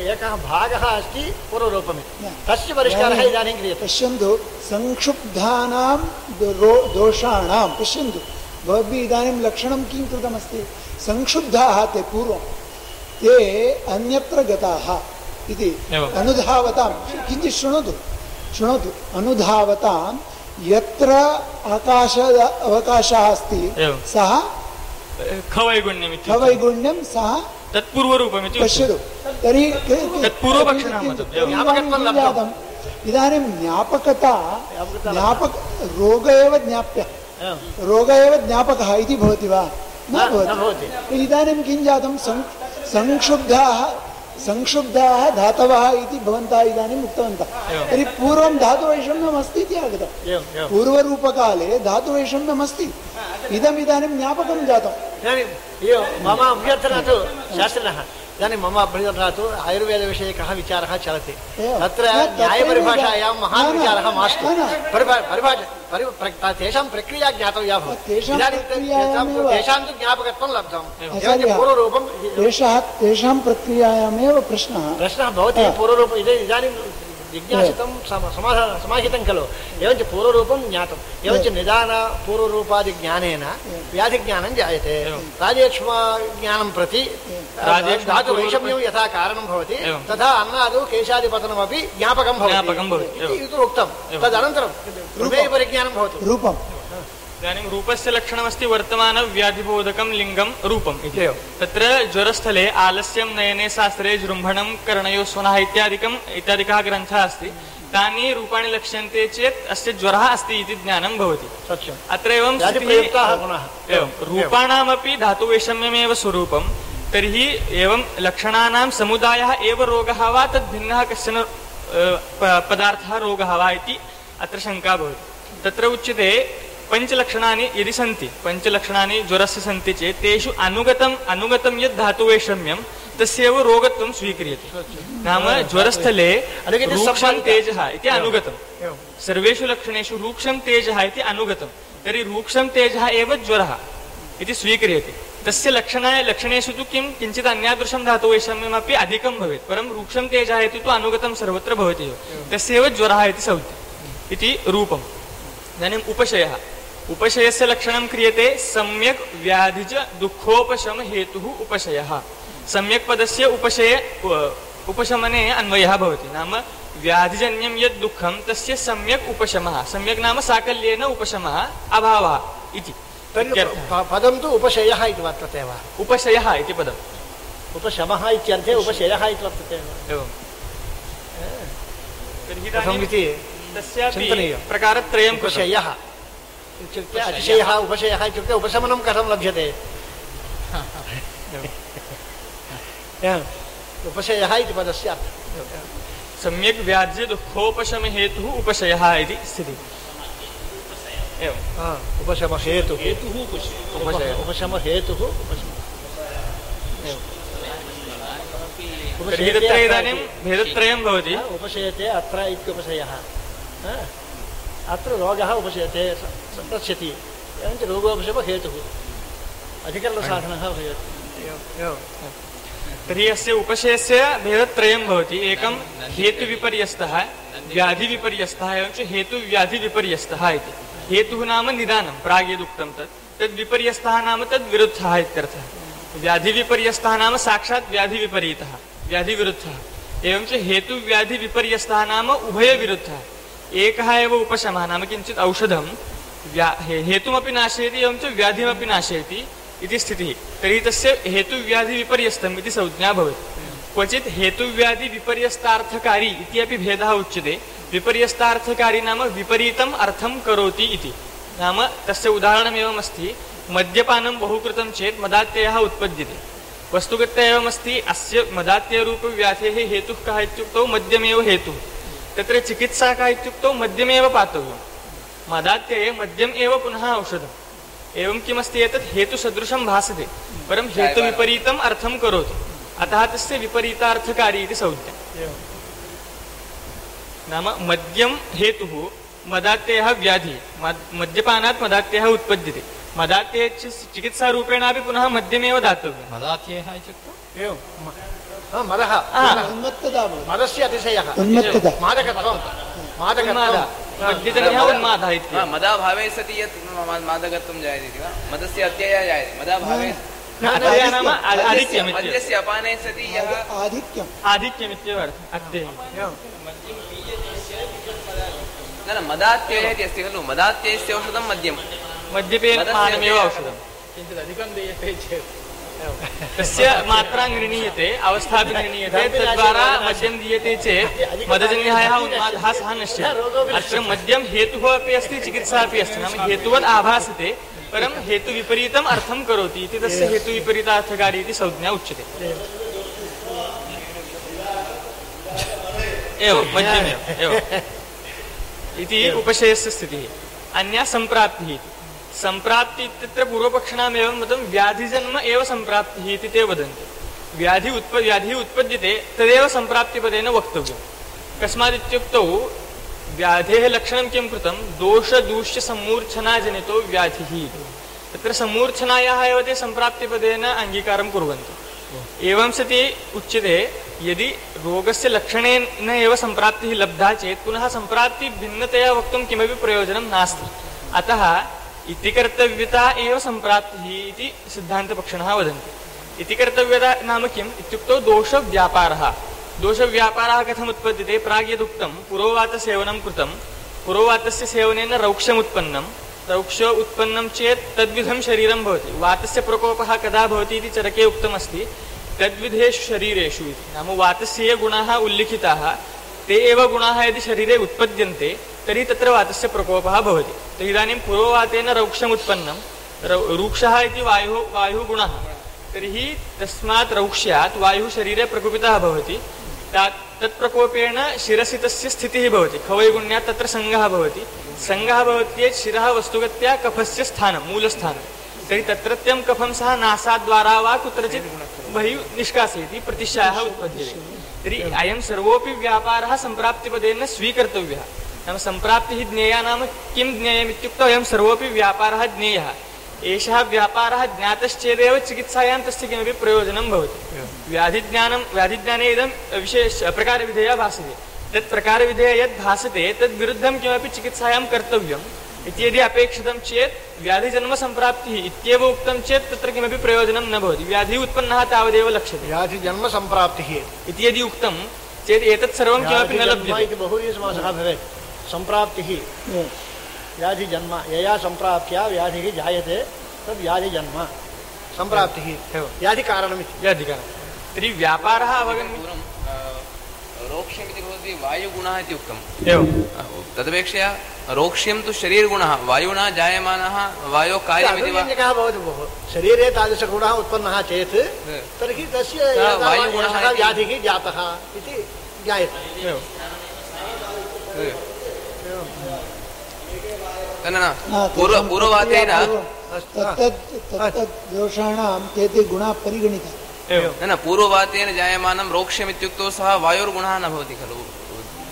एकः भागः अस्ति पूर्वरूपमिति तस्य परिष्कारः इदानीं क्रियते पश्यन्तु संक्षुब्धानां दोषाणां पश्यन्तु भवद्भिः इदानीं लक्षणं किं कृतमस्ति संक्षुब्धाः ते पूर्वं ते अन्यत्र गताः इति अनुधावतां किञ्चित् शृणोतु अनुधावतां यत्र अवकाशः अस्ति सः खवैगुण्यं सः तत्पूर्वरूपमिति पश्यतु तर्हि इदानीं रोग एव ज्ञापकः इति भवति वा न भवति इदानीं किं जातं संक्षुब्धाः धातवः इति भवन्तः इदानीम् उक्तवन्तः तर्हि पूर्वं धातुवैषम्यम् अस्ति इति आगतं पूर्वरूपकाले धातुवैषम्यम् अस्ति इदमिदानीं ज्ञापकं जातं मम अभ्यर्थना तु शास्त्रिणः इदानीं मम अभ्यर्थना तु आयुर्वेदविषयकः विचारः चलति तत्र न्यायपरिभाषायां महान् विचारः मास्तु तेषां प्रक्रिया ज्ञातव्या भवति तेषां तु ज्ञापकत्वं लब्धं पूर्वरूपं तेषां प्रक्रियायामेव प्रश्नः भवति पूर्वरूपम् इदानीं जिज्ञासितं समाहितं खलु एवञ्च पूर्वरूपं ज्ञातम् एवञ्च निदान पूर्वरूपादिज्ञानेन व्याधिज्ञानं जायते राजेक्ष्मज्ञानं प्रति धातुवैषम्यं यथा कारणं भवति तथा अन्नादौ केशादिपतनमपि ज्ञापकं भवति इति उक्तं तदनन्तरं परिज्ञानं भवति रूपं इदानीं रूपस्य लक्षणमस्ति वर्तमानव्याधिबोधकं लिङ्गं रूपम् इति तत्र ज्वरस्थले आलस्यं नयने शास्त्रे जृम्भणं कर्णयो स्वनः इत्यादिकः ग्रन्थः अस्ति तानि रूपाणि लक्ष्यन्ते चेत् अस्य ज्वरः अस्ति इति ज्ञानं भवति अत्र एवं रूपाणामपि धातुवैषम्यमेव स्वरूपं तर्हि एवं लक्षणानां समुदायः एव रोगः वा तद्भिन्नः कश्चन पदार्थः रोगः वा इति अत्र शङ्का भवति तत्र उच्यते पञ्चलक्षणानि यदि सन्ति पञ्चलक्षणानि ज्वरस्य सन्ति चेत् तेषु अनुगतं यद् धातुवैषम्यं तस्यैव रोगत्वं स्वीक्रियते नाम ज्वरस्थले रूक्षं तेजः इति अनुगतं सर्वेषु लक्षणेषु रूक्षं तेजः इति अनुगतं तर्हि रूक्षं तेजः एव ज्वरः इति स्वीक्रियते तस्य लक्षणेषु तु किञ्चित् अन्यादृशं धातुवैषम्यमपि अधिकं भवेत् परं रूक्षं तेजः इति तु अनुगतं सर्वत्र भवति एव तस्यैव ज्वरः इति सौति इति रूपम् इदानीम् उपशयस्य लक्षणं क्रियते सम्यक् व्याधिज दुःखोपशम हेतुः उपशयः सम्यक् पदस्य उपशमने अन्वयः भवति नाम व्याधिजन्यं यद् दुःखं तस्य सम्यक् उपशमः सम्यक् नाम साकल्येन उपशमः अभावः इति पदं तु उपशयः इति वर्तते वा उपशयः इति पदम् उपशमः इत्यर्थे उपशयः इति वर्तते एवं तर्हि तस्यापि प्रकारत्रयं उपशयः इत्युक्ते अतिशयः उपशयः इत्युक्ते उपशमनं कथं लभ्यते उपशयः इति पदस्य अर्थः सम्यक् व्याध्य दुःखोपशम हेतुः उपशयः इति स्थितिः एवम् उपशमहेतुः इदानीं भेदत्रयं भवति उपशयते अत्र इत्युपशयः अत्र रोगः उपशयते संरक्ष्यति एवञ्च रोगोपशमहेतुः अधिकरणसाधनः भवेत् तर्हि अस्य उपशयस्य भेदत्रयं भवति एकं हेतुविपर्यस्तः व्याधिविपर्यस्तः एवञ्च हेतुव्याधिविपर्यस्तः इति हेतुः नाम निदानं प्राग्यदुक्तं तद्विपर्यस्तः नाम तद्विरुद्धः इत्यर्थः व्याधिविपर्यस्तः नाम साक्षात् व्याधिविपरीतः व्याधिविरुद्धः एवञ्च हेतुव्याधिविपर्यस्तः नाम उभयविरुद्धः एकः एव उपशमः नाम किञ्चित् औषधं हेतुमपि नाशयति एवं च व्याधिमपि नाशयति इति स्थितिः। तर्हि तस्य हेतुव्याधिविपर्यस्तम् इति संज्ञा भवति। क्वचित् हेतुव्याधिविपर्यस्तार्थकारी इति अपि भेदः उच्यते। विपर्यस्तार्थकारी नाम विपरीतम् अर्थं करोति इति। नाम तस्य उदाहरणमेवम् अस्ति, मद्यपानं बहु कृतं चेत् मदात्ययः उत्पद्यते। वस्तुगत्या एवमस्ति, अस्य मदात्यरूपव्याधेः हेतुः कः इत्युक्तौ मद्यमेव हेतुः। तत्र चिकित्सा का इत्युक्तौ मद्यमेव पातव्यम्। मदात्यये मद्यम् एव पुनः औषधम्। एवं किमस्ति, एतत् हेतुसदृशं भासते परं हेतुविपरीतम् अर्थं करोति, अतः तस्य विपरीतार्थकारी इति संज्ञा। नाम मद्यं हेतुः, मदात्ययः व्याधिः, मद्यपानात् मदात्ययः उत्पद्यते। मदात्यये चिकित्सारूपेणापि पुनः मद्यमेव दातव्यं। मदात्ययः इत्युक्तौ मदः मदस्य अतिशयः मादकत्वं मद्यजन्यः उन्मादः इति। मदाभावे सति यत् मादकत्वं जायते इति वा? मदस्य अत्ययः जायते मदाभावे नाम आधिक्यम्, मद्यस्य अपाने सति यः आधिक्यमित्येव अर्थः अत्ययम्। न मदात्ययः इति अस्ति खलु, मदात्ययस्य औषधं मद्यं, मद्यपेन पानमेव औषधं। किञ्चित् अधिकं दीयते चेत् तस्य मात्रा निर्णीयते, अवस्थापि निर्णीयते, तद्वारा मद्यं दीयते चेत् मदजन्यः उन्मादः सः नश्यते। अत्र मद्यं हेतुः अपि अस्ति, चिकित्सा अपि अस्ति। नाम हेतुवत् आभासते परं हेतुविपरीतम् अर्थं करोति इति तस्य हेतुविपरीतार्थकारी इति संज्ञा उच्यते। एवं मद्यमेव एवम् इति उपशयस्य स्थितिः। अन्या सम्प्राप्तिः इति। सम्प्राप्ति इत्यत्र पूर्वपक्षिणामेवं मतं व्याधिजन्म एव सम्प्राप्तिः इति ते वदन्ति। व्याधिः उत्पद्यते तदेव सम्प्राप्तिपदेन वक्तव्यम्। कस्मादित्युक्तौ व्याधेः लक्षणं किं कृतं, दोषदूष्यसम्मूर्छनाजनितो व्याधिः। तत्र सम्मूर्छनायाः एव ते सम्प्राप्तिपदेन अङ्गीकारं कुर्वन्ति। एवं सति उच्यते, यदि रोगस्य लक्षणेन एव सम्प्राप्तिः लब्धा चेत् पुनः सम्प्राप्ति भिन्नतया वक्तुं किमपि प्रयोजनं नास्ति। अतः इति कर्तव्यता एव सम्प्राप्तिः इति सिद्धान्तपक्षिणः वदन्ति। इति कर्तव्यता नाम किम् इत्युक्तौ दोषव्यापारः। दोषव्यापारः कथम् उत्पद्यते, प्राग् यदुक्तं पुरोवातसेवनं कृतं, पुरोवातस्य सेवनेन रौक्ष्यमुत्पन्नं, रौक्ष उत्पन्नं चेत् तद्विधं शरीरं भवति। वातस्य प्रकोपः कदा भवति इति चरके उक्तमस्ति, तद्विधेषु शरीरेषु इति। नाम वातस्य ये गुणाः उल्लिखिताः ते एव गुणाः यदि शरीरे उत्पद्यन्ते तर्हि तत्र वातस्य प्रकोपः भवति। तर्हि इदानीं पुरोवातेन रौक्ष्यमुत्पन्नं, रूक्षः इति वायुः गुणः, तर्हि तस्मात् रौक्ष्यात् वायुः शरीरे प्रकोपितः भवति। तत्प्रकोपेण शिरसि तस्य स्थितिः भवति, खवैगुण्यात् तत्र सङ्गः भवति। सङ्गः भवति चेत् शिरः वस्तुगत्या कफस्य स्थानं, मूलस्थानं। तर्हि तत्रत्यं कफं सः नासाद्वारा वा कुत्रचित् बहिः निष्कासयति, प्रतिशायः उत्पद्यते। तर्हि अयं सर्वोऽपि व्यापारः सम्प्राप्तिपदेन स्वीकर्तव्यः। नाम सम्प्राप्तिः ज्ञेया नाम किं ज्ञेयम् इत्युक्तौ अयं सर्वोऽपि व्यापारः ज्ञेयः। एषः व्यापारः ज्ञातश्चेदेव चिकित्सायां तस्य किमपि प्रयोजनं भवति। व्याधिज्ञाने इदं विशेष प्रकारविधेया भासते। तत् प्रकारविधेया यद् भासते तद्विरुद्धं किमपि चिकित्सायां कर्तव्यम् इति यदि अपेक्षितं चेत् व्याधिजन्मसम्प्राप्तिः इत्येव उक्तं चेत् तत्र किमपि प्रयोजनं न भवति। व्याधिः उत्पन्नः तावदेव लक्ष्यते। व्याधिजन्मसम्प्राप्तिः इति यदि उक्तं चेत् एतत् सर्वं किमपि न लभ्यते। बहुव्रीहिसमासः भवेत्। सम्प्राप्तिः व्याधिजन्म, यया सम्प्राप्त्या व्याधिः जायते तद् व्याधिजन्म सम्प्राप्तिः व्याधिकारणमिति। व्याधिकारणं तर्हि व्यापारः अवगम्य रोक्ष्यमिति भवति वायुगुणः इति उक्तम्। तदपेक्षया रोक्ष्यं तु शरीरगुणः, वायुना जायमानः वायोः कार्यमिति वा? भवति भोः, शरीरे तादृशगुणः उत्पन्नः चेत् तर्हि तस्य वायुगुणः व्याधिः जातः इति ज्ञायते। पूर्ववातेन दोषाणां ते गुणाः परिगणिताः। न पूर्ववातेन जायमानं रोक्ष्यमित्युक्तौ सः वायोर्गुणः न भवति खलु,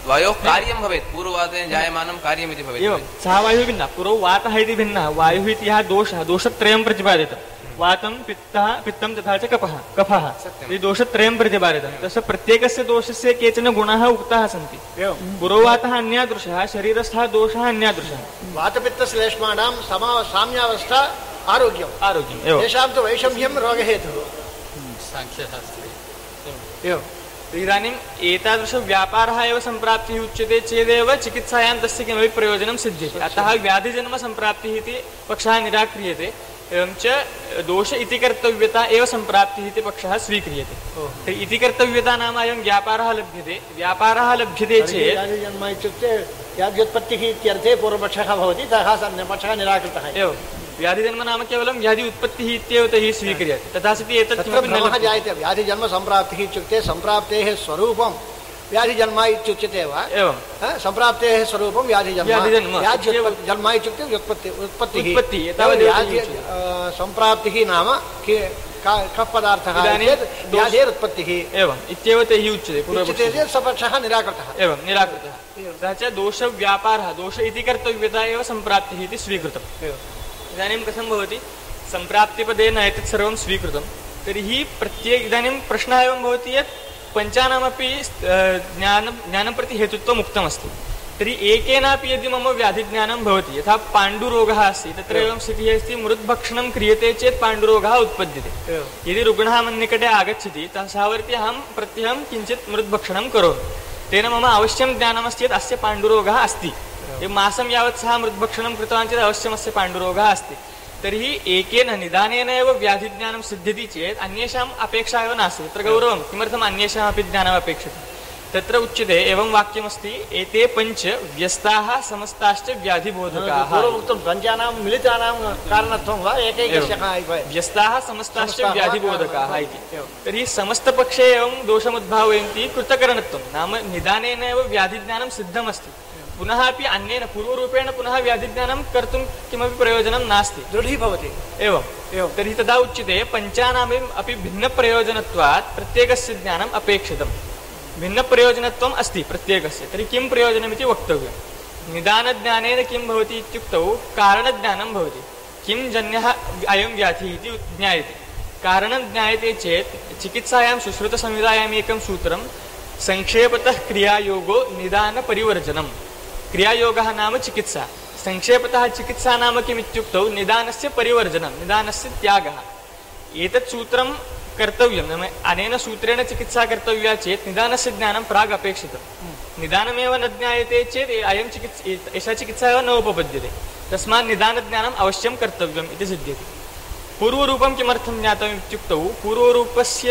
वायोः कार्यं भवेत्। पूर्ववातेन जायमानं कार्यमिति भवेत्। सः वायुः भिन्नः, पूर्वं वातः इति भिन्नः, वायुः इति यः दोषः, दोषत्रयं प्रतिपादितं। वातं पित्तं तथा च कफः इति दोषत्रयं प्रतिपादितं। तस्य प्रत्येकस्य दोषस्य केचन गुणाः उक्ताः सन्ति। पुरोवातः अन्यादृशः, शरीरस्थः दोषः अन्यादृशः। वातपित्तश्लेष्माणां साम्यावस्था आरोग्यम् तेषां तु वैषम्यं रोगहेतुः। साङ्ख्यशास्त्रे इदानीम् एतादृशव्यापारः एव सम्प्राप्तिः उच्यते चेदेव चिकित्सायां तस्य किमपि प्रयोजनं सिद्ध्यति। अतः व्याधिजन्मसम्प्राप्तिः इति पक्षः निराक्रियते। एवं च दोष इति कर्तव्यता एव सम्प्राप्तिः इति पक्षः स्वीक्रियते। तर्हि इति कर्तव्यता नाम अयं व्यापारः लभ्यते। व्यापारः लभ्यते चेत् व्याधिजन्म इत्युक्ते व्याध्युत्पत्तिः इत्यर्थे पूर्वपक्षः भवति, तथा पक्षः निराकृतः एव। व्याधिजन्म नाम केवलं व्याधि उत्पत्तिः इत्येव तैः स्वीक्रियते। तथा सति एतत् किमपि न जायते। व्याधिजन्मसम्प्राप्तिः इत्युक्ते सम्प्राप्तेः स्वरूपं व्याधिजन्म इत्युच्यते वा? एवं सम्प्राप्तेः स्वरूपं व्याधिजन्म। जन्म इत्युक्ते उत्पत्तिः। सम्प्राप्तिः नाम कः पदार्थः? व्याधेरुत्पत्तिः एवम् इत्येव तैः उच्यते। सपक्षः निराकृतः। एवं निराकृतः। तथा च दोषव्यापारः, दोष इति कर्तव्यता एव सम्प्राप्तिः इति स्वीकृतम्। इदानीं कथं भवति? सम्प्राप्तिपदेन एतत् सर्वं स्वीकृतं, तर्हि इदानीं प्रश्नः एवं भवति यत् पञ्चानामपि ज्ञानं प्रति हेतुत्वम् उक्तमस्ति। तर्हि एकेनापि यदि मम व्याधिज्ञानं भवति, यथा पाण्डुरोगः अस्ति, तत्र एवं स्थितिः अस्ति, मृद्भक्षणं क्रियते चेत् पाण्डुरोगः उत्पद्यते। यदि रुग्णः मन्निकटे आगच्छति तावर्ति अहं प्रत्यहं किञ्चित् मृद्भक्षणं करोमि, तेन मम अवश्यं ज्ञानमस्ति यत् अस्य पाण्डुरोगः अस्ति। मासं यावत् सः मृद्भक्षणं कृतवान् चेत् अवश्यमस्य पाण्डुरोगः अस्ति। तर्हि एकेन निदानेन एव व्याधिज्ञानं सिद्ध्यति चेत् अन्येषाम् अपेक्षा एव नास्ति। तत्र गौरवं किमर्थम् अन्येषामपि ज्ञानम् अपेक्षते? तत्र उच्यते एवं वाक्यमस्ति, एते पञ्च व्यस्ताः समस्ताश्च व्याधिबोधकाः। पञ्चानां मिलितानां कारणत्वं वा एकैकस्य? व्यस्ताः समस्ताश्च व्याधिबोधकाः इति। तर्हि समस्तपक्षे एवं दोषमुद्भावयन्ति कृतकरणत्वं, नाम निदानेन एव व्याधिज्ञानं सिद्धमस्ति। पुनः अपि अन्येन पूर्वरूपेण पुनः व्याधिज्ञानं कर्तुं किमपि प्रयोजनं नास्ति, दृढीभवति। एवं तर्हि तदा उच्यते पञ्चानाम् अपि भिन्नप्रयोजनत्वात् प्रत्येकस्य ज्ञानम् अपेक्षितं। भिन्नप्रयोजनत्वम् अस्ति प्रत्येकस्य। तर्हि किं प्रयोजनमिति वक्तव्यं। निदानज्ञानेन किं भवति इत्युक्तौ कारणज्ञानं भवति। किं जन्यः अयं व्याधिः इति ज्ञायते। कारणं ज्ञायते चेत् चिकित्सायां सुश्रुतसंहितायाम् एकं सूत्रं, संक्षेपतः क्रियायोगो निदानपरिवर्जनम्। क्रियायोगः नाम चिकित्सा, संक्षेपतः चिकित्सा नाम किमित्युक्तौ निदानस्य परिवर्जनं, निदानस्य त्यागः। एतत् सूत्रं कर्तव्यं, नाम अनेन सूत्रेण चिकित्सा कर्तव्या चेत् निदानस्य ज्ञानं प्राग् अपेक्षितं। निदानमेव न ज्ञायते चेत् एषा चिकित्सा एव न उपपद्यते। तस्मात् निदानज्ञानम् अवश्यं कर्तव्यम् इति सिद्ध्यति। पूर्वरूपं किमर्थं ज्ञातव्यम् इत्युक्तौ पूर्वरूपस्य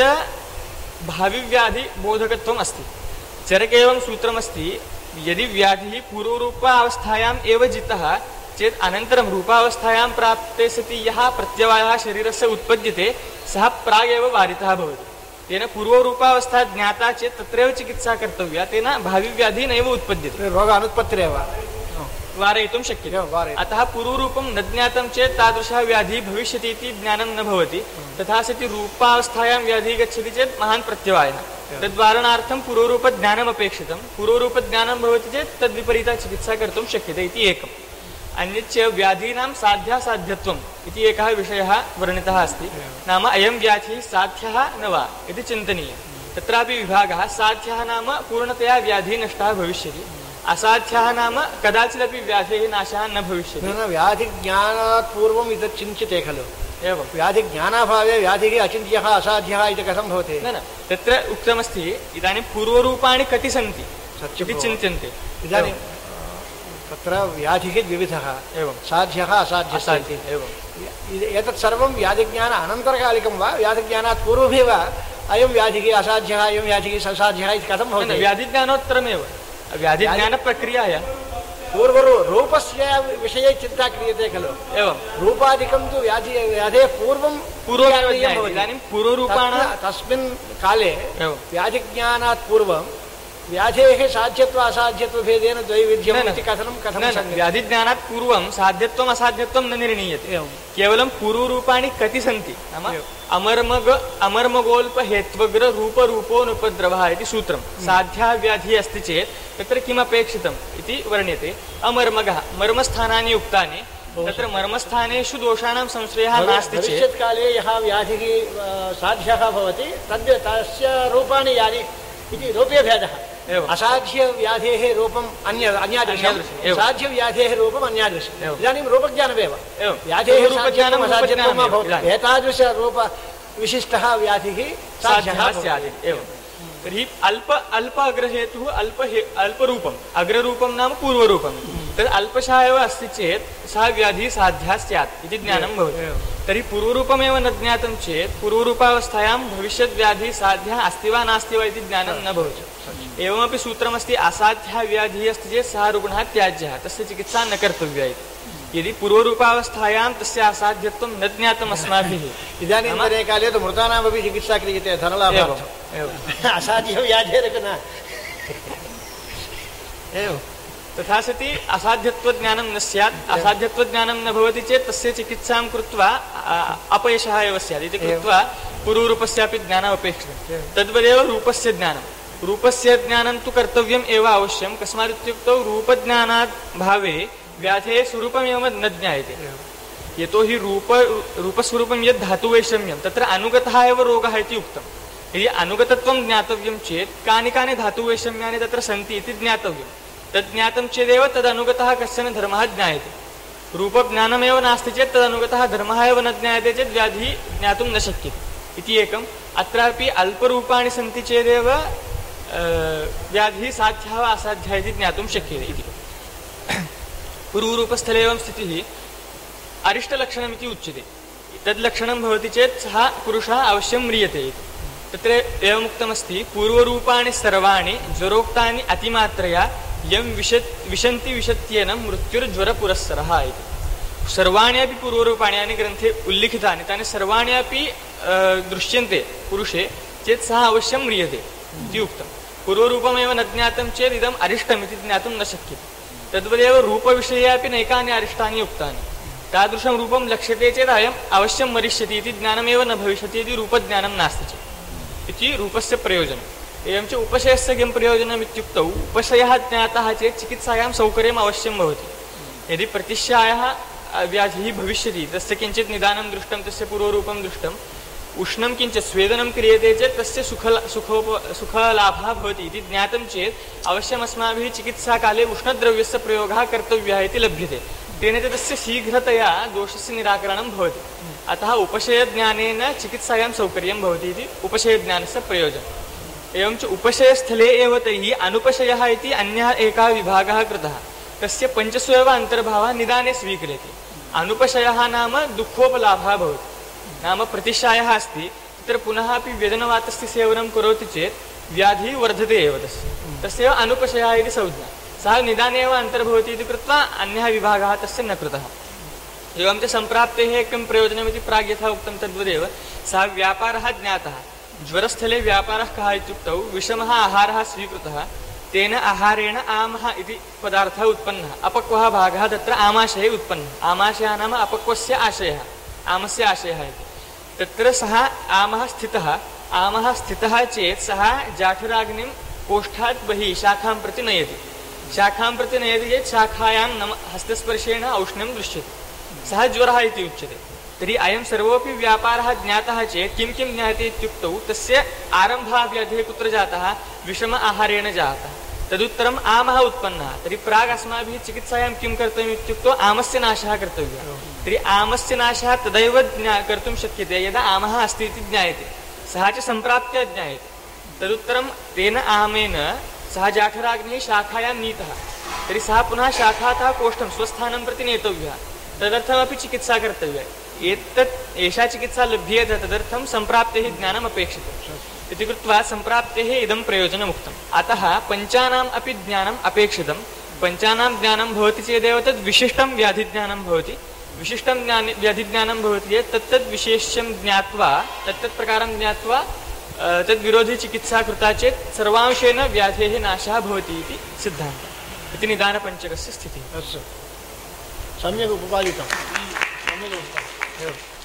भाविव्याधिबोधकत्वम् अस्ति। चरके एवं सूत्रमस्ति, यदि व्याधिः पूर्वरूपावस्थायाम् एव जितः चेत् अनन्तरं रूपावस्थायां प्राप्ते सति यः प्रत्यवायः शरीरस्य उत्पद्यते सः प्रागेव वारितः भवति। तेन पूर्वरूपावस्था ज्ञाता चेत् तत्रैव चिकित्सा कर्तव्या, तेन भाविव्याधिः नैव उत्पद्यते, रोगानुत्पत्तिरेव वारयितुं शक्यते। अतः पूर्वरूपं न ज्ञातं चेत् तादृशः व्याधिः भविष्यति इति ज्ञानं न भवति। तथा सति रूपावस्थायां व्याधिः गच्छति चेत् महान् प्रत्यवायः, तद्वारणार्थं पूर्वरूपज्ञानम् अपेक्षितं। पूर्वरूपज्ञानं भवति चेत् तद्विपरीता चिकित्सा कर्तुं शक्यते इति एकम्। अन्यच्च व्याधीनां साध्यासाध्यत्वम् इति एकः विषयः वर्णितः अस्ति। नाम अयं व्याधिः साध्यः न वा इति चिन्तनीयं। तत्रापि विभागः, साध्यः नाम पूर्णतया व्याधिः नष्टः भविष्यति, असाध्यः नाम कदाचिदपि व्याधेः नाशः न भविष्यति। व्याधिज्ञानात् पूर्वम् इदं चिन्त्यते खलु? एवं व्याधिज्ञानाभावे व्याधिः अचिन्त्यः असाध्यः इति कथं भवति? न तत्र उक्तमस्ति, इदानीं पूर्वरूपाणि कति सन्ति इति चिन्त्यन्ते। इदानीं तत्र व्याधिः द्विविधः, एवं साध्यः असाध्यः। एवं एतत् सर्वं व्याधिज्ञान अनन्तरकालिकं वा व्याधिज्ञानात् पूर्वमेव अयं व्याधिः असाध्यः अयं व्याधिः असाध्यः इति कथं भवति? व्याधिज्ञानोत्तरमेव, व्याधिज्ञानप्रक्रियायां पूर्वरूपस्य विषये चिन्ता क्रियते खलु? एवं रूपादिकं तु व्याधेः पूर्वमेव इदानीं पूर्वरूपाणां तस्मिन् काले व्याधिज्ञानात् पूर्वं व्याधेः साध्यत्व असाध्यत्वभेदेन द्वैविध्यम् इति कथं? व्याधिज्ञानात् पूर्वं साध्यत्वम् असाध्यत्वं न निर्णीयते। केवलं पूर्वरूपाणि कति सन्ति, नाम अमर्मगोल्पहेत्वग्र रूपरूपोनुपद्रवः इति सूत्रं। साध्या व्याधिः अस्ति चेत् तत्र किमपेक्षितम् इति वर्ण्यते। अमर्मगः, मर्मस्थानानि उक्तानि, तत्र मर्मस्थानेषु दोषाणां संश्रयः नास्ति चेत् भविष्यत्काले यः व्याधिः साध्यः भवति तस्य रूपाणि यानि इति रूपे भेदः। असाध्य व्याधेः रूपम् अन्यादृशं, साध्य व्याधेः रूपम् अन्यादृशम्। इदानीं रूपज्ञानमेव व्याधेः रूपज्ञानम् असाध्यत्वं एतादृश रूप विशिष्टः व्याधिः साध्यः स्यात्। एवं तर्हि अल्प अग्रहेतुः अल्परूपम् अग्ररूपं नाम पूर्वरूपं तद् अल्पशः एव अस्ति चेत् सः व्याधिः साध्या स्यात् इति ज्ञानं भवति तर्हि पूर्वरूपमेव न ज्ञातं चेत् पूर्वरूपावस्थायां भविष्यद्व्याधिः साध्या अस्ति वा नास्ति वा इति ज्ञानं न भवति एवमपि सूत्रमस्ति असाध्या व्याधिः अस्ति चेत् सः रुग्णः त्याज्यः तस्य चिकित्सा न कर्तव्या इति यदि पूर्वरूपावस्थायां तस्य असाध्यत्वं न ज्ञातम् अस्माभिः इदानीन्तने काले तु मृतानामपि चिकित्सा क्रियते धनलाभार्थम् असाध्यव्याधेरपि न एवं तथा सति असाध्यत्वज्ञानं न स्यात् असाध्यत्वज्ञानं न भवति चेत् तस्य चिकित्सां कृत्वा अपयशः एव स्यात् इति कृत्वा पूर्वरूपस्यापि ज्ञानम् अपेक्षितं तद्वदेव रूपस्य ज्ञानं तु कर्तव्यम् एव अवश्यं कस्मादित्युक्तौ रूपज्ञानात् भावे व्याधेः स्वरूपमेव न ज्ञायते यतोहि रूपस्वरूपं यद् धातुवैषम्यं तत्र अनुगतः एव रोगः इति उक्तम् यदि अनुगतत्वं ज्ञातव्यं चेत् कानि कानि धातुवैषम्यानि तत्र सन्ति इति ज्ञातव्यं तद् ज्ञातं चेदेव तदनुगतः कश्चन धर्मः ज्ञायते रूपज्ञानमेव नास्ति चेत् तदनुगतः धर्मः एव न ज्ञायते चेत् व्याधिः ज्ञातुं न शक्यते इति एकम् अत्रापि अल्परूपाणि सन्ति चेदेव व्याधिः साध्यः वा असाध्यः इति ज्ञातुं शक्यते इति पूर्वरूपस्थले एवं स्थितिः अरिष्टलक्षणमिति उच्यते तद्लक्षणं भवति चेत् सः पुरुषः अवश्यं म्रियते इति तत्र एवमुक्तमस्ति पूर्वरूपाणि सर्वाणि ज्वरोक्तानि अतिमात्रया यं विशन्ति विशत्येन मृत्युर्ज्वरपुरस्सरः इति सर्वाणि अपि पूर्वरूपाणि यानि ग्रन्थे उल्लिखितानि तानि सर्वाणि अपि दृश्यन्ते पुरुषे चेत् सः अवश्यं म्रियते इति उक्तं पूर्वरूपमेव न ज्ञातं चेत् इदम् अरिष्टमिति ज्ञातुं न शक्यते तद्वदेव रूपविषये अपि नैकानि अरिष्टानि उक्तानि तादृशं रूपं लक्ष्यते चेत् अयम् अवश्यं मरिष्यति इति ज्ञानमेव न भविष्यति यदि रूपज्ञानं नास्ति चेत् इति रूपस्य प्रयोजनम् एवं च उपशयस्य किं प्रयोजनम् इत्युक्तौ उपशयः ज्ञातः चेत् चिकित्सायां सौकर्यम् अवश्यं भवति यदि प्रतिश्यायः व्याधिः भविष्यति तस्य किञ्चित् निदानं दृष्टं तस्य पूर्वरूपं दृष्टम् उष्णं किञ्चित् स्वेदनं क्रियते चेत् तस्य सुखलाभः भवति इति ज्ञातं चेत् अवश्यम् अस्माभिः चिकित्साकाले उष्णद्रव्यस्य प्रयोगः कर्तव्यः इति लभ्यते तेन च तस्य शीघ्रतया दोषस्य निराकरणं भवति अतः उपशयज्ञानेन चिकित्सायां सौकर्यं भवति इति उपशयज्ञानस्य प्रयोजनम् एवं च उपशयस्थले एव तैः अनुपशयः इति अन्यः एकः विभागः कृतः तस्य पञ्चसु एव अन्तर्भावः निदाने स्वीक्रियते अनुपशयः नाम दुःखोपलाभः भवति नाम प्रतिशायः अस्ति तत्र पुनः अपि व्यजनवातस्य सेवनं करोति चेत् व्याधिः वर्धते एव तस्य अनुपशयः इति संज्ञा सः निदाने एव अन्तर्भवति इति कृत्वा अन्यः विभागः तस्य न कृतः एवं च सम्प्राप्तेः किं प्रयोजनमिति प्राग् यथा उक्तं तद्वदेव सः व्यापारः ज्ञातः ज्वरस्थले व्यापारः कः इत्युक्तौ विषमः आहारः स्वीकृतः तेन आहारेण आमः इति पदार्थः उत्पन्नः अपक्वः भागः तत्र आमाशये उत्पन्नः आमाशयः नाम अपक्वस्य आशयः आमस्य आशयः इति तत्र सः आमः स्थितः चेत् सः जाठराग्निं कोष्ठात् बहिः शाखां प्रति नयति चेत् शाखायां हस्तस्पर्शेन औष्ण्यं दृश्यते सः ज्वरः इति उच्यते तर्हि अयं सर्वोऽपि व्यापारः ज्ञातः चेत् किं किं ज्ञायते इत्युक्तौ तस्य आरम्भः व्याधिः कुत्र जातः विषम आहारेण जातः तदुत्तरम् आमः उत्पन्नः तर्हि प्राग् अस्माभिः चिकित्सायां किं कर्तव्यम् इत्युक्तौ आमस्य नाशः कर्तव्यः तर्हि आमस्य नाशः तदैव कर्तुं शक्यते यदा आमः अस्ति इति ज्ञायते सः च सम्प्राप्य ज्ञायते तदुत्तरं तेन आमेन सः जाठराग्निः शाखायां नीतः तर्हि सः पुनः शाखातः कोष्ठं स्वस्थानं प्रति नेतव्यः तदर्थमपि चिकित्सा कर्तव्या एषा चिकित्सा लभ्येत तदर्थं सम्प्राप्तेः ज्ञानम् अपेक्षितम् इति कृत्वा सम्प्राप्तेः इदं प्रयोजनमुक्तम् अतः पञ्चानाम् अपि ज्ञानम् अपेक्षितं पञ्चानां ज्ञानं भवति चेदेव तद् विशिष्टं व्याधिज्ञानं भवति विशिष्टं व्याधिज्ञानं भवति चेत् तत्तद् विशेष्यं ज्ञात्वा तत्तत्प्रकारं ज्ञात्वा तद्विरोधी चिकित्सा कृता चेत् सर्वांशेन व्याधेः नाशः भवति इति सिद्धान्तः इति निदानपञ्चकस्य स्थितिः सम्यक् उपपादितं सम्यक् उक्तम्